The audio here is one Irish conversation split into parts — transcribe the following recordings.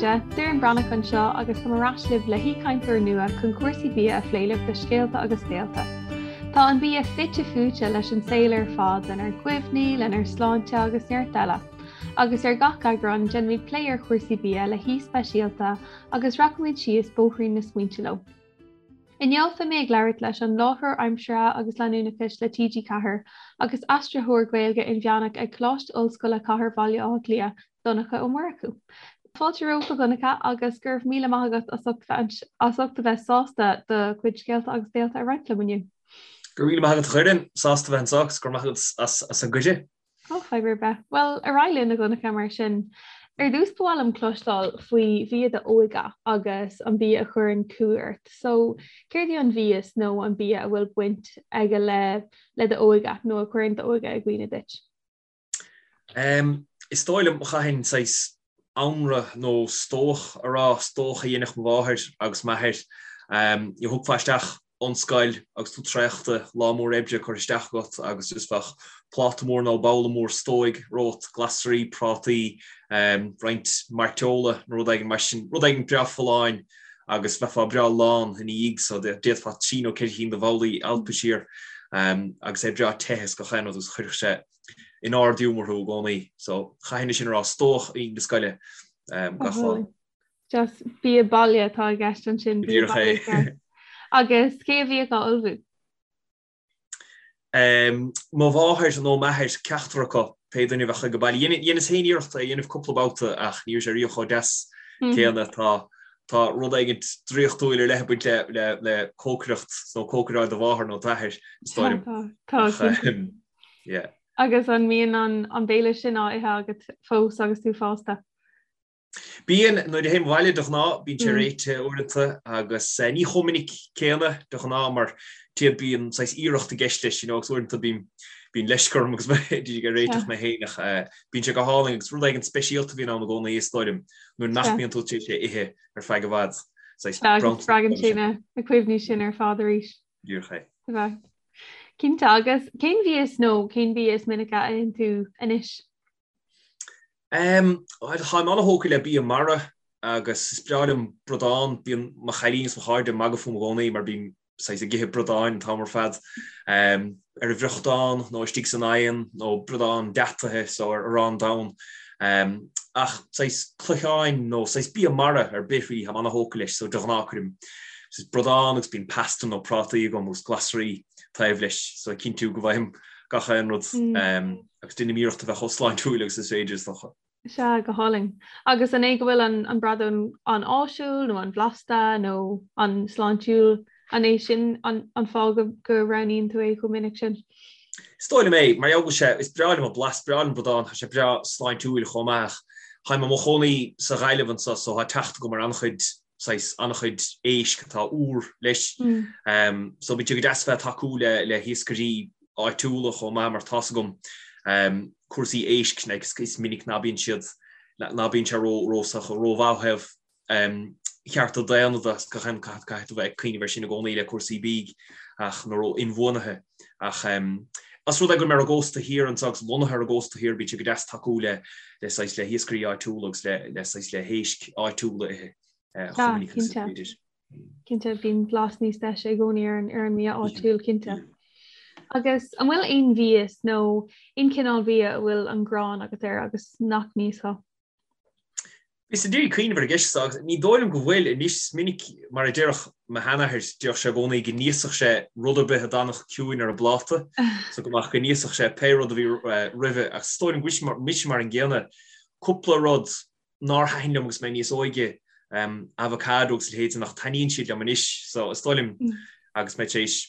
chairde, Doireann Breathnach anseo agus táim ar ais libh le haoichainteoir nua chun cúrsaí bia a phlé libh le Scéalta agus Béalta. Tá an bia fite fuaite leis an saol ar fad, lenár gcuimhní, lenár sláinte agus neart eile. Agus ar gach eagrán, déanfaimid plé ar chúrsaí bia le haoi speisialta agus rachaimid síos bóithrín na smaointe leo. Inniu beidh mé ag labhairt leis an láithreoir aimsire agus leanúnachais le TG4 agus aistritheoir Gaeilge inmheánach ag Coláiste Ollscoile Chathair Bhaile Átha Cliath, Donncha Ó Murchú. Fáilte romhat a Dhonncha agus go raibh míle maith agat as ucht as ucht a bheith sásta do chuid scéalta agus béalta a roinnt liom inniu. Go raibh míle maith agat a Dhoireann, sásta a bheith anseo agus go raibh maith agat as an gcuireadh. Ó, fadhb ar bith. Bhuel, ar aghaidh linn, a Dhonncha, mar sin. Ar dtús, ba mhaith liom cloisteáil faoi bhia d'óige agus an bia a chuireann cumha ort. So, céard é an mhias nó an bia a bhfuil baint aige le le d'óige nó a chuireann d'óige i gcuimhne duit? Um, is dóigh liom, chaithfinn saghas anraith nó stobhach a rá, stobhach a dhéanfadh mo mháthair agus m'athair. Thiocfá isteach ón scoil agus tú traochta, lá mór oibre curtha isteach agat agus just bheadh pláta mór nó babhla mór stobhaigh romhat, glasraí, prátaí, roinnt mairteola nó rud éigin mar sin, rud éigin breá folláin agus bheifeá breá lán ina dhiaidh so d'fhéadfá trí nó ceithre chinn de bhabhlaí a alpadh siar agus é breá te is gach aon rud agus chuirfeadh sé in ard-ghiúmar thú i gcónaí. So chaithfinn é sin a rá, stobhach na scoile gach lá. Just bia baile atá i gceist ansin. Bia baile ceart. Agus cé a bhíodh á ullmhú? Mo mháthair nó m'athair, ceachtar acu, pé duine a bheadh ag baile. Dheineas féin iarracht é a dhéanamh cúpla babhta ach ní raibh sé riamh chomh deas céanna. Tá tá rud éigin draíochtúil ar leith ag baint le le le cócaireacht nó cócaireáil do mháthar nó d'athair, is dóigh liom. Tá, tá. Yeah. Agus an mbíonn an an béile sin á ithe agat fós agus tú fásta? Bíonn, nuair a théim abhaile de ghnáth, bíonn sé réitithe uaireanta agus ní chomh minic céanna de ghnáth mar tíod bíonn saghas iarracht i gceist leis, you know, agus uaireanta bíonn bíonn leisce orm agus mé ag réiteach mé féin ach bíonn sé go hálainn agus rud éigin speisialta a bhíonn ann i gcónaí is dóigh liom nuair nach mbíonn tú tar éis é a ithe ar feadh i bhfad. Saghas bronntanas. Spreagann sé na cuimhní sin ar fad arís. Díreach é. Cinnte agus cén mhias nó cén bia is minice a itheann tú anois? Táim an-thógtha le bia mara agus is breá liom bradán. Bíonn mo chailín is mo chairde ag magadh fúm i gcónaí mar bím saghas ag ithe bradáin an t-am ar fad, ar an bhfriochtán nó istigh san oigheann nó bradán deataithe so ar arán donn. Ach saghas cloicheáin nó saghas bia mara ar bith really, táim an-thógtha leis so de ghnáth cuirim saghas bradán agus bíonn pasta nó prátaí agam agus glasraí taobh leis so cinntiú go bhfaighim gach aon rud. Agus déanaim iarracht a bheith chomh sláintiúil agus is féidir, is dócha. Sea, go hálainn. Agus an é go bhfuil an an bradán an-áisiúil nó an-bhlasta nó an-sláintiúil, an é sin an an fáth go go roghnaíonn tú é chomh minic sin? Is dóigh liom é, mar gheall go bhfuil sé, is breá liom an blas, breá liom bradán, tá sé breá sláintiúil chomh maith ach táim i mo chónaí sa Ghaillimh anseo so tá teacht agam ar an-chuid saghas an-chuid éisc atá úr leis. So bíonn sé go deas a bheith ag tacú le le hiascairí áitiúla chomh maith mar tá's agam cúrsaí éisc like is minic ná bíonn siad ná bíonn sé ró ró rómhaith ó thaobh chearta daonna de agus gach aon caithfidh tú bheith ag cuimhneamh air sin i gcónaí le cúrsaí bídh ach nó ró inbhuanaithe ach os rud é go bhfuil mé ar an gcósta thiar anseo agus lonnaithe ar an gcósta thiar bíonn sé go deas tacú le le saghas le hiascairí áitiúla agus le le saghas le héisc áitiúla a ithe chomh minic agus is féidir. Cinnte, bíonn blas níos deise i gcónaí ar an ar an mbia áitiúil, cinnte. Agus an bhfuil aon mhias nó aon chineál bhia a bhfuil an ghráin agat air agus nach n-íosfá? Bhíos ag iarraidh cuimhneamh ar an gceist seo agus ní dóigh liom go bhfuil. Anois, is minic, mar a déarfadh mo sheanathair, déarfadh sé i gcónaí go n-íosfadh sé rud ar bith a d'fhanfadh ciúin ar an bpláta, so go mbeadh, go n-íosfadh sé pé rud a bhí roimhe. Ach is dóigh liom go bhfuil mise mar an gcéanna. Cúpla rud nár thaitin liom agus mé níos óige, avocado agus a leithéid sin, ach taitníonn siad liom anois. So is dóigh liom agus mé tar éis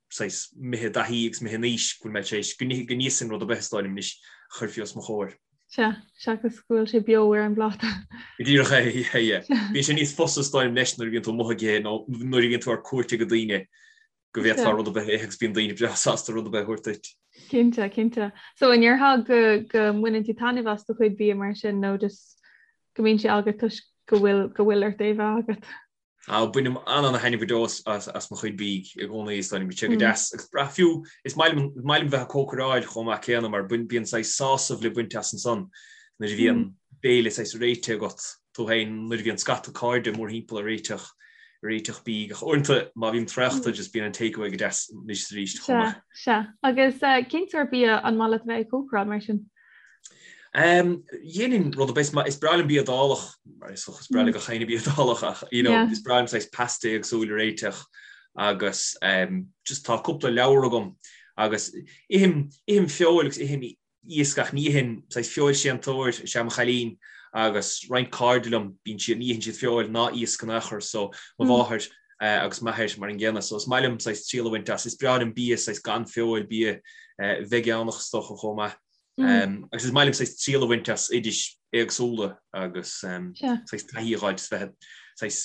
saghas imithe i dtaithí agus imithe in aois go bhfuil mé tar éis go n-íosfainn rud ar bith is dóigh liom anois a chuirfí os mo chomhair. Sea, seachas go bhfuil sé beo ar an bpláta. Go díreach é, yeah, yeah. Bíonn sé níos fusa is dóigh liom leis nuair a bhíonn tú amuigh ag ithe nó nuair a bhíonn tú ar cuairt ag daoine go bhféadfá rud ar bith a ithe agus bíonn daoine breá sásta rud ar bith a thabhairt duit. Cinnte, cinnte. So an ndéarfá go go mbaineann tú taitneamh as do chuid bia mar sin nó just go mbíonn sé agat toisc go bhfuil go bhfuil ort é bheith agat? Á, bainim an-ana-thaitneamh go deo as mo chuid bídh i gcónaí, is dóigh liom. Bíonn sé go deas agus breá fiú, is maith liom, is maith liom bheith ag cócaráil chomh maith céanna mar bíonn saghas sásamh le baint as ansan nuair a bhíonn béile saghas réitithe agat. tú féin nuair a bhíonn scata cairde mórthimpeall ag réiteach ag réiteach bídh ach uaireanta má bhím traochta just bíonn an takeaway go deas anois is arís chomh maith. Sea, sea. Agus cén sórt bia an maith leat a bheith ag cócaráil mar sin? Dhéanfainn rud ar bith, is breá liom bia Iodálach, mar is dócha is breá le gach éinne bia Iodálach ach you know is breá liom saghas pasta éagsúil a réiteach agus just tá cúpla leabhar agam agus ithim ithim feoil agus ithim iasc ach ní itheann saghas feoilséantóir is ea mo chailín agus roinnt cairde liom bíonn siad ní itheann siad feoil ná iasc in aon chor so mo mháthair agus m'athair mar an gcéanna so is maith liom saghas triail a bhaint as is breá liom bia saghas gan feoil bia veigeánach is dócha chomh maith. Agus is maith liom saghas triail a bhaint as oidis éagsúla agus saghas taithí a fháil bheith saghas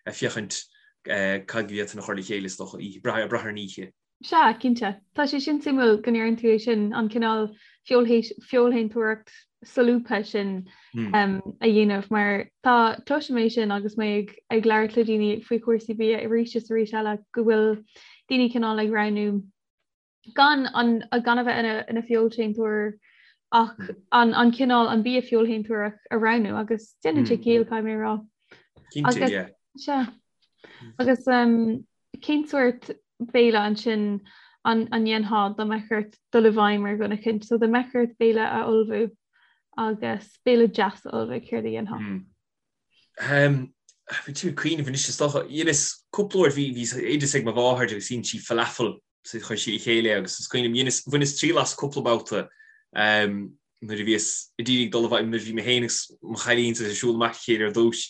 ag féachaint cad go bhféadfainn a chur le chéile is dócha, brath ar an oíche. Sea, cinnte. Tá sé sin suimiúil go ndeireann tú é sin, an cineál feoilshéantóireacht solúbtha sin a dhéanamh mar tá cloisim é sin agus mé ag ag labhairt le daoine faoi chúrsaí bia arís is arís eile go bhfuil daoine cineál ag roghnú gan an gan a bheith ina ina feoilséantóir ach an an cineál an bia feoilshéantóireach a roghnú agus déanann sé ciall caithfidh mé a rá. Cinnte, yeah. Sea. Agus um, cén sórt béile ansin an an ndéanfá dá mbeadh ort dul i bhfeidhm ar dhuine eicínt, so dá mbeadh ort béile a ullmhú agus béile deas a ullmhú, céard a dhéanfá? Bhí tú ag cuimhneamh anois is dócha, dheineas cúpla uair bhí bhí oideas ag mo mháthair agus dhein sí falafel so chuir sí le chéile é agus is cuimhin liom, dheineas, bhaineas triail as cúpla babhta nuair a bhíos i dtír ag dul i bhfeidhm, nuair a bhí mé féin agus mo chailín ag siúl amach le chéile ar dtús,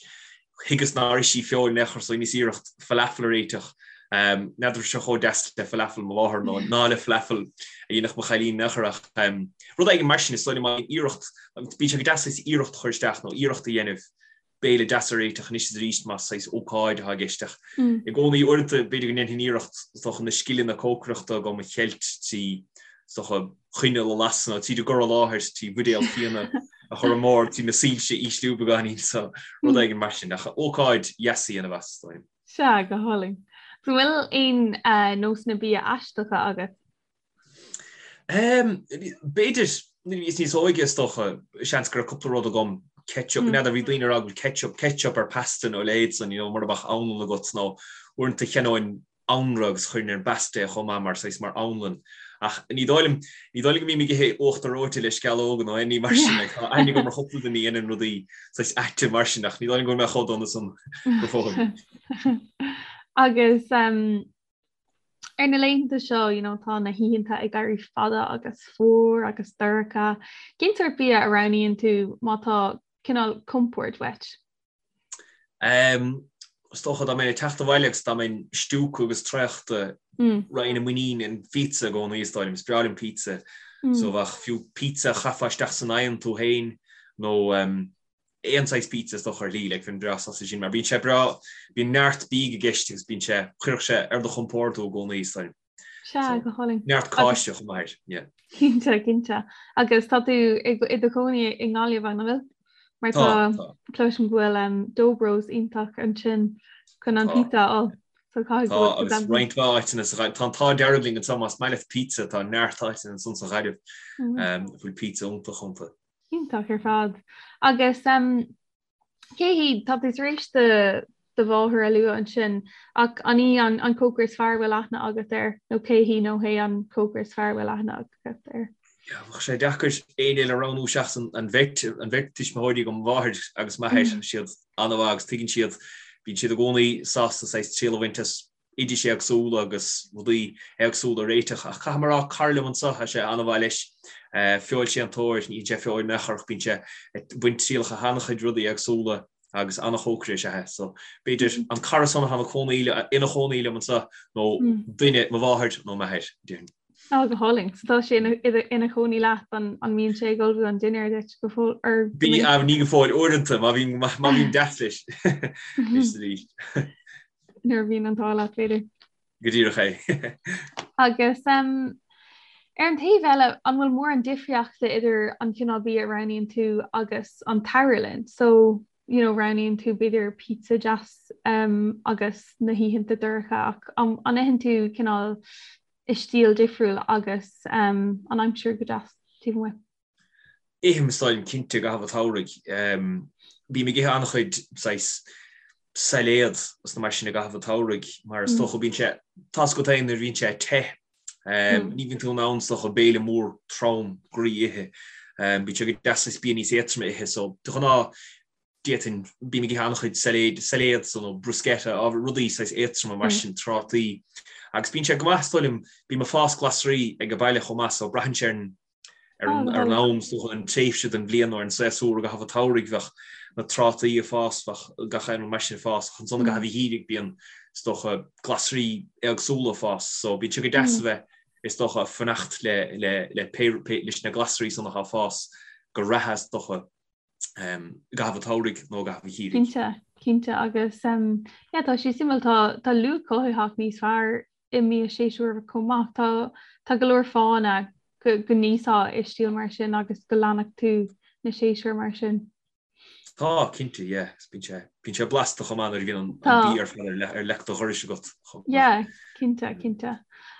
thuigeas nár ith sí feoil in aon chor so dheineas iarracht falafel a réiteach. N'fheadar raibh sé chomh deas le falafel mo mháthar nó ná le falafel a dhéanfadh mo chailín in aon chor ach rud éigin mar sin is dóigh liom iarracht, bíonn sé go deas iarracht a chur isteach nó iarracht a dhéanamh béile deas a réiteach anois is arís más saghas ócáid atá i gceist ach i gcónaí uaireanta b'fhéidir go ndéanfainn iarracht is dócha na scileanna cócaireachta agam a cheilt trí is dócha coinneal a lasadh nó tríd an gcur i láthair trí bhuidéal fíona a chur ar bord trí na soilse a ísliú beagáinín so rud éigin mar sin ach ócáid dheas a dhéanamh as is dóigh liom. Sea, go hálainn. An bhfuil aon nósanna bia aisteacha agat? B'fhéidir, nuair a bhíos níos óige is dócha, seans go raibh cúpla rud agam, ketchup, n'fheadar, bhí daoine ag rá go bhfuil ketchup, ketchup ar pasta nó a leithéid san, you know, mura mbeadh anlann agat nó uaireanta cheannóinn anraith agus chuirfinn ar an bpasta é chomh maith mar saghas mar anlann. Ach ní dóigh liom, ní dóigh liom go mbím ag ithe uachtar reoite le sceallóga nó aon ní mar sin, like, tá aithne agam ar chúpla duine a dhéanann rudaí saghas aite mar sin ach ní dóigh liom go bhfuil mé chomh dona san go fóill. Agus Ar na laethanta seo, you know, tá na hoícheanta ag éirí fada agus fuar agus dorcha. Cén sórt bia a roghnaíonn tú má tá cineál compord uait? Um, is dócha dá mbeinn ag teacht abhaile agus dá mbeinn stiúgtha agus traochta mm. raghainn i muinín an phizza i gcónaí is dóigh liom, is breá liom pizza. Mm. So bheadh fiú pizza a chaithfeá isteach san oigheann tú féin nó um, aon saghas pizza is dócha ar shlí, like, bheinn breá sásta sin, mar bíonn sé breá, bíonn neart bídh i gceist agus bíonn sé, chuirfeadh sé ar do chompord tú i gcónaí, is dóigh liom. Sea, go hálainn. Neart cáise chomh maith air, yeah. Cinnte, cinnte. Agus tá tú i i do chónaí i nGaillimh, an bhfuil? Mar tá, tá. Cloisim go bhfuil um, Dobros iontach ansin chun an pizza a fháil. So caithfidh go bhfuil Tá, agus roinnt mhaith áiteanna sa Ghaillimh. Tá an t-ádh dearg linn anseo más maith leat pizza, tá neart áiteanna ansan sa Ghaillimh um, a bhfuil pizza iontach iontu. Iontach ar fad. Agus cé hí, tá tú tar éis do do mháthair a lua ansin, ach an í an an cócaire is fearr a bhfuil aithne agat air, nó cé hí nó hé an cócaire is fearr a bhfuil aithne agat air? Yeah, bheadh sé deacair éinne eile a roghnú seachas an, an bheirt, an bheirt tuismitheoirí agam, mo mháthair agus m'athair, mm. siad an-mhaith agus tuigeann siad, bíonn siad i gcónaí sásta saghas triail a bhaint as oidis éagsúla agus rudaí éagsúla a réiteach. Ach caithfidh mé a rá, cara liom anseo, tá sé an-mhaith leis, feoilséantóir, ní itheann sé feoil in aon chor ach bíonn sé ag baint trialacha as an-chuid rudaí éagsúla agus an-chócaire is ea é. So, b'fhéidir an cara san atá ina chónaí, ina chónaí liom anseo nó duine, mo mháthair nó m'athair, déarfainn. Á, go hálainn. So tá sé ina chónaí leat, an mbíonn sé ag ullmhú an dinnéir duit go fóill? Or Bí, ní go fóill, uaireanta, má bhím, má bhím deas leis. Anois arís. Nuair a bhíonn an t-ádh leat, b'fhéidir. Go díreach é. Agus um, ar an taobh eile, an bhfuil mórán difríochta idir an cineál bia a roghnaíonn tú agus an tsamhradh linn? So, you know, roghnaíonn tú b'fhéidir pizza deas um, agus na hoícheanta dorcha ach an, an itheann tú cineál i stíl difriúil agus um, an aimsir go deas taobh amuigh? Ithim is dóigh liom cinnte i gcaitheamh an tsamhraidh. Bím ag ithe an-chuid saghas sailéad is na mar sin i gcaitheamh an tsamhraidh mar is dócha bíonn sé, tá's agat féin nuair a bhíonn sé te, ní bhíonn tú in ann is dócha béile mór trom groí a ithe. Bíonn sé go deas saghas bia níos éadtroime a ithe so de ghnáth d'fhéadfainn, bím ag ithe an-chuid sailéid, sailéad so nó bruschetta, ábhar, rudaí saghas éadtroma mar sin, trátaí. Agus bíonn sé go maith is dóigh liom, bím ag fás glasraí ag an baile chomh maith so braitheann sé ar an ar an ar an am is dócha an tréimhse den bhliain nó ar an séasúr i gcaitheamh an tsamhraidh bheadh na trátaí ag fás, bheadh gach aon rud mar sin ag fás ach ansan i gcaitheamh an gheimhridh bíonn is dócha glasraí éagsúla ag fás so bíonn sé go deas a bheith is dócha ag fanacht le le le pé pé leis na glasraí san atá ag fás go reatha is dócha i gcaitheamh an tsamhraidh nó i gcaitheamh an gheimhridh. Cinnte, cinnte agus yeah tá sé suimiúil tá tá luach cothaitheach níos fearr i mbia séasúrach chomh maith. Tá tá go leor fáthanna go go n-íosfá i stíl mar sin agus go leanfadh tú na séasúir mar sin. Tá, cinnte, yeah. Bíonn sé bíonn sé blasta chomh maith nuair a bhíonn an an bia ar fad ar le ar leic do dhorais agat chomh maith. Yeah, cinnte, cinnte.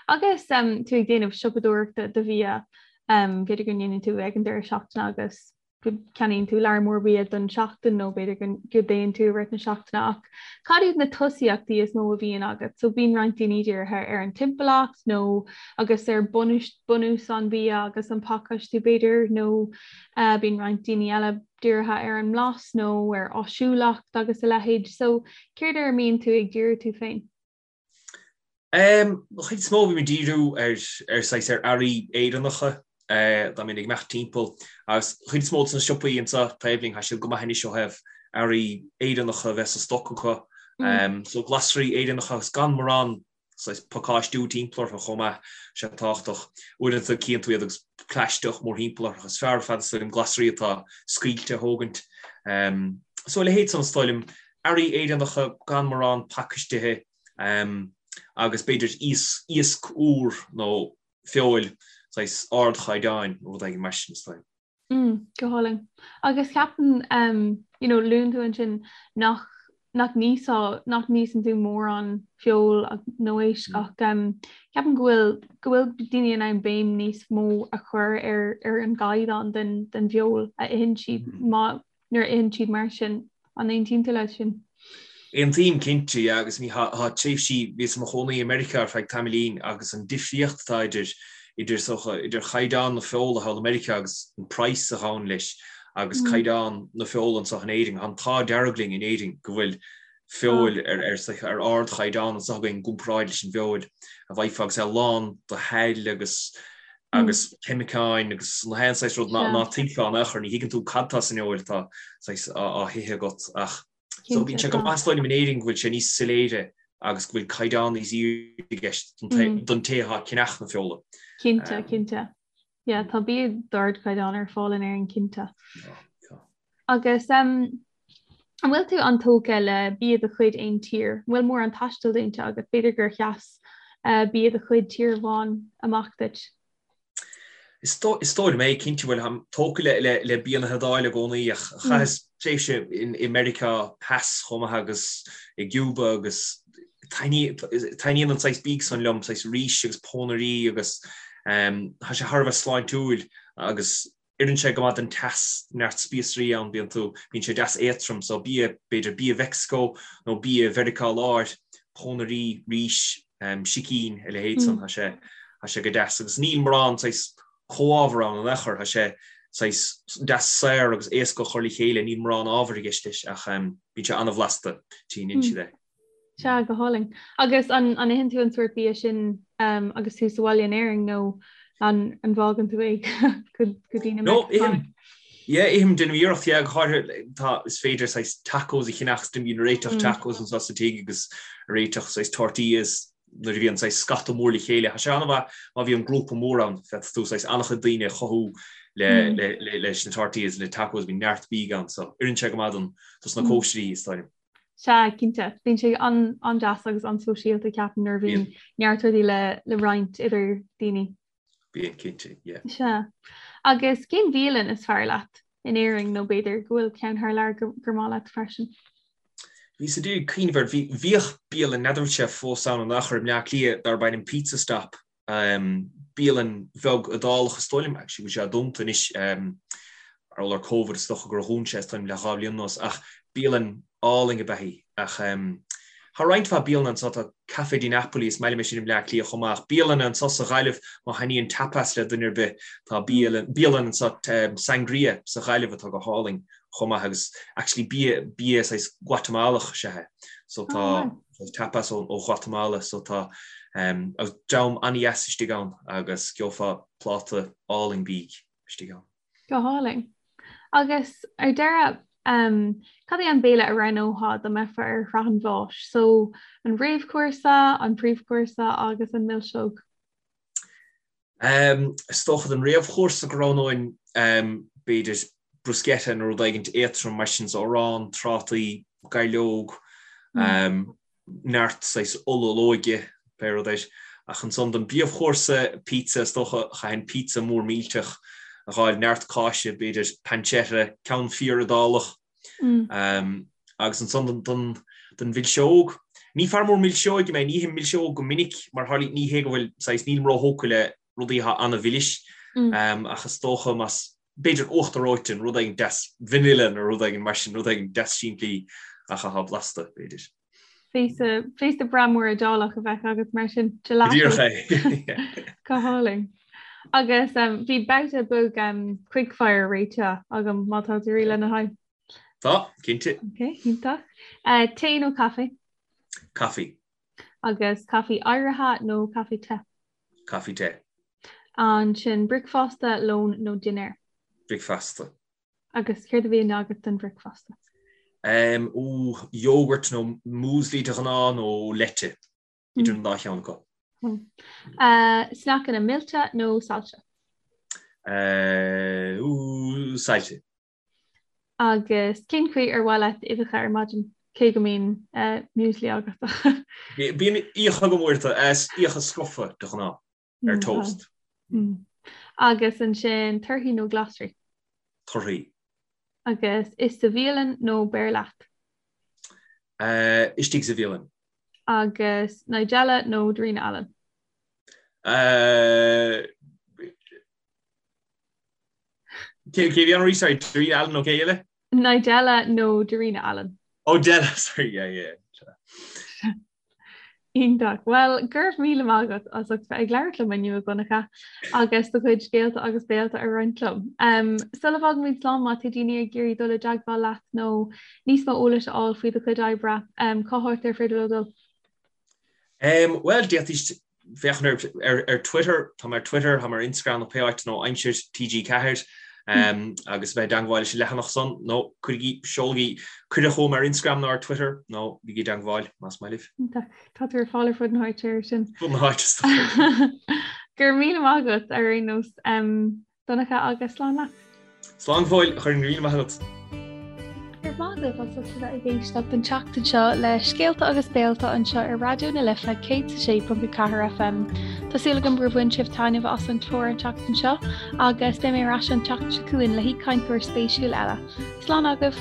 Agus tú ag déanamh siopadóireachta do bhia, b'fhéidir go ndéanann tú ag an deireadh seachtaine agus go gceannaíonn tú lear mór bia don seachtain nó b'fhéidir go dtéann tú i rith na seachtaine ach cad iad na tosaíochtaí is mó a bhíonn agat? So bíonn roinnt daoine dírithe ar an timpeallacht nó agus ar bunús an bhia agus an pacáistiú b'fhéidir nó uh, bíonn roinnt daoine eile dírithe ar an mblas nó ar áisiúlacht agus a leithéid. So céard ar a mbíonn tú ag díriú tú féin? An chuid is mó bím ag díriú ar ar saghas ar earraí Éireannacha dá mbeinn ag imeacht timpeall agus an chuid is mó de na siopaí anseo taobh linn tá siad go maith anois ó thaobh earraí Éireannacha a bheith sa stoc acu. So glasraí Éireannacha agus gan mórán saghas pacáistiú timpeall orthu chomh maith, sé tábhachtach. Uaireanta cíonn tú iad agus plaisteach mórthimpeall orthu. Is fearr ar fad is dóigh liom glasraí atá scaoilte a thógaint. So a leithéid san is dóigh liom earraí Éireannacha gan mórán pacaistithe agus b'fhéidir iasc úr nó feoil saghas ardchaighdeáin nó rud éigin mar sin is dóigh. Mm, go hálainn. Agus ceapaim, you know, luann tú ansin nach nach n-íosfá, nach n-íosann tú mórán feoil nó éisc mm. ach um, ceapaim go bhfuil go bhfuil daoine in ann béim níos mó a chur ar ar an gcaighdeán den den bhfeoil a itheann siad mm. má nuair a itheann siad mar sin. An aontaíonn tú leis sin? Aontaím cinnte, yeah, agus ní thá tréimhsí, bhíos i mo chónaí i Meiriceá ar feadh tamaillín agus an difríocht atá idir, idir is dócha, idir chaighdeán na feola thall i Meiriceá agus an praghas a ghabhann leis agus caighdeán na feola anseo in Éirinn. Tá an t-ádh dearg linn in Éirinn go bhfuil feoil ar, ar, ar ardchaighdeán anseo againn i gcomparáid leis an bhfeoil a bhfaighfeá agus é lán de shaill agus agus ceimiceáin agus na haon saghas rud ná tuigfeá in aon chor, ní thuigeann tú cad tá san fheoil atá saghas á hithe agat ach so bíonn sé go maith is dóigh liom in Éirinn go bhfuil sé níos soiléire agus go bhfuil caighdeán níos airde i gceist don té atá ag ceannach na feola. Cinnte, cinnte. Yeah, tá bia d'ardchaighdeán ar fáil in Éirinn cinnte. Agus um, an bhfuil tú an-tógtha le bia de chuid aon tír? An bhfuil mórán taistil déanta agat? B'fhéidir gur sheas uh, bia de chuid tír amháin amach duit? Is dóigh liom é, cinnte bhuel táim tógtha le, le, le bia na hIodáile i gcónaí ach mm. chaitheas tréimhse in, i Meiriceá Theas chomh maith agus i gCuba agus taitníonn an saghas bídh san liom, saghas rís agus pónairí agus um, tá sé thar a bheith sláintiúil agus Oireann sé go maith don teas, neart spíosraí ann, bíonn tú, bíonn sé deas éadtrom, so bia, b'fhéidir bia Mheicsiceo nó bia Mheiriceá Láir, pónairí, rís, sicín, a leithéid san, tá sé, tá sé go deas. Agus níl mórán saghas comhábhar ann in aon chor, tá sé saghas deas saor agus éasca a chur le chéile, níl mórán ábhair i gceist leis ach bíonn sé an-bhlasta, tchíonn siad é. Sea, go hálainn. Agus an an itheann tú an sórt bia sin um, agus tú sa bhaile in Éirinn nó an an bhfágann tú é go go dtí na No, ithim. Yeah, ithim déanaim iarracht, yeah, go háirithe tá is féidir saghas tacos a cheannach, bím ag réiteach mm. tacos anseo sa tigh agus réiteach saghas tortillas nuair a bhíonn saghas scata mór le chéile. Tá sé an-mhaith má bhíonn grúpa mór ann, féadfaidh tú saghas an-chuid daoine a chothú le, mm. le, le, leis na tortillas, le tacos, bíonn neart bídh ann, so oireann sé go maith don dos na mm. cóisirí is dóigh liom. Sea, cinnte. Bíonn sé an-deas agus an-sóisialta, ceapaim, nuair a bhíonn neart rudaí le le roinnt idir daoine. Bíonn, cinnte, yeah. Sea. Agus cén bhialann is fearr leat in Éirinn nó b'fhéidir go bhfuil ceann thar lear gur maith leat freisin? Bhíos ag iarraidh cuimhneamh air, bhí, bhíodh bialann, n'fheadar an bhfuil sé fós ann in aon chor i mBleá Cliath darb ainm Pizza Stop Bialann bheag Iodálach is dóigh liom, actually, go bhfuil sé dúnta anois. Mar gheall ar Covid is dócha gur dhún sé is dóigh liom le 2 bhliain anuas ach bialann álainn ab ea í. Ach tá roinnt mhaith bialanna anseo, tá Café di Napoli, is maith liom é sin i mBleá Cliath chomh maith. Ach bialanna anseo sa Ghaillimh, má thaitníonn tapas le duine ar bith, tá bialann anseo, Sangria, sa Ghaillimh atá go hálainn chomh maith agus actually bia, bia saghas Guatamalach is ea é. So tá tapas ó Ghuatamala so tá agus dream an-dheas istigh ann agus gheofá pláta álainn bídh istigh ann. Go hálainn. Agus ar deireadh, cad é an béile a roghnófá dá mbeifeá ar shraith an bháis? So, an réamhchúrsa, an príomhchúrsa agus an milseog? Is dócha don réamhchúrsa go roghnóinn b'fhéidir bruschetta nó rud éigin éadtrom mar sin, so arán, trátaí, gairleog, neart saghas ola olóige, pé rud é. Ach ansan don bpríomhchúrsa, pizza, is dócha, chaithfinn pizza mór millteach a dh'fháil, neart cáise, b'fhéidir pancetta, ceann fíor Iodálach. Agus ansan don mhilseog, ní fear mór milseoige mé, ní ithim milseog go minic mar tharlaíonn, ní hé go bhfuil, saghas, nílim róthógtha le rudaí atá an-mhilis, ach is dócha más, b'fhéidir uachtar reoite, nó rud éigin deas vanilla nó rud éigin mar sin, rud éigin deas simplí ach atá blasta, b'fhéidir. Féasta, féasta breá mór Iodálach a bheadh agat mar sin, gelato. Díreach é. Go hálainn. Agus um, bhí babhta beag um, quickfire réitithe agam má tá tú réidh lena haghaidh. Tá, cinnte. Ok, iontach. Uh, tae nó caife? Caife. Agus caife oighrithe nó caife te? Caife te. Ansin bricfeasta, lón nó dinnéar? Bricfeasta. Agus céard a bhíonn agat don bhricfeasta? Um, ó, yogurt nó muesli de ghnáth nó leite, idir an dá cheann acu. Uh, sneaiceanna millte nó saillte? Uh, ú, saillte. Agus cén chaoi ar mhaith leat uibheacha ar maidin, cé go mbíonn muesli agat? Bíonn uibheacha agam uaireanta, uibheacha scrofa de ghnáth, ar toast. Agus ansin torthaí nó glasraí? Torthaí. Agus ith sa bhialann nó beir leat? Istigh sa bhialann. Agus Nigella nó Darina Allen? Cé bhí ann arís? Sorry, Darina Allen nó cé eile? Nigella nó Darina Allen. Oh, Della, sorry, yeah, yeah. Iontach. Bhuel, go raibh míle maith agat as ucht bheith ag labhairt liom inniu, a Dhonncha, agus do chuid scéalta agus béalta a roinnt liom. Um, sula bhfágaimid slán má tá daoine ag iarraidh dul i dteagmháil leat nó níos mó eolais a fháil faoi do chuid oibre, um, cá háit ar féidir leo dul? Um, Bhuel, d'fhéadfaidís féachaint ar, ar Twitter, tá mé ar Twitter, tá mé ar Instagram nó pé áit nó Aimsir TG4 um, agus bheith i dteagmháil leis an leathanach san nó cuirigí, seolaigí cuireadh chugam ar Instagram nó ar Twitter nó bígí i dteagmháil más maith libh. Tá tú ar fáil ar fud na háite ar sin. Fud na háite is dócha. Go raibh míle maith agat ar aon nós. Um, Donncha agus slán leat. Slán go fóill, a Choirn, go raibh míle maith agat. Go raibh maith agaibh as ucht a bheith ag éisteacht an tseachtain seo le Scéalta agus Béalta anseo ar Raidió na Life 106.4 FM. Tá súil agam gur bhain sibh taitneamh as an chlár an tseachtain seo agus beidh mé ar ais an tseachtain seo chugainn le haoichainteoir spéisiúil eile. Slán agaibh!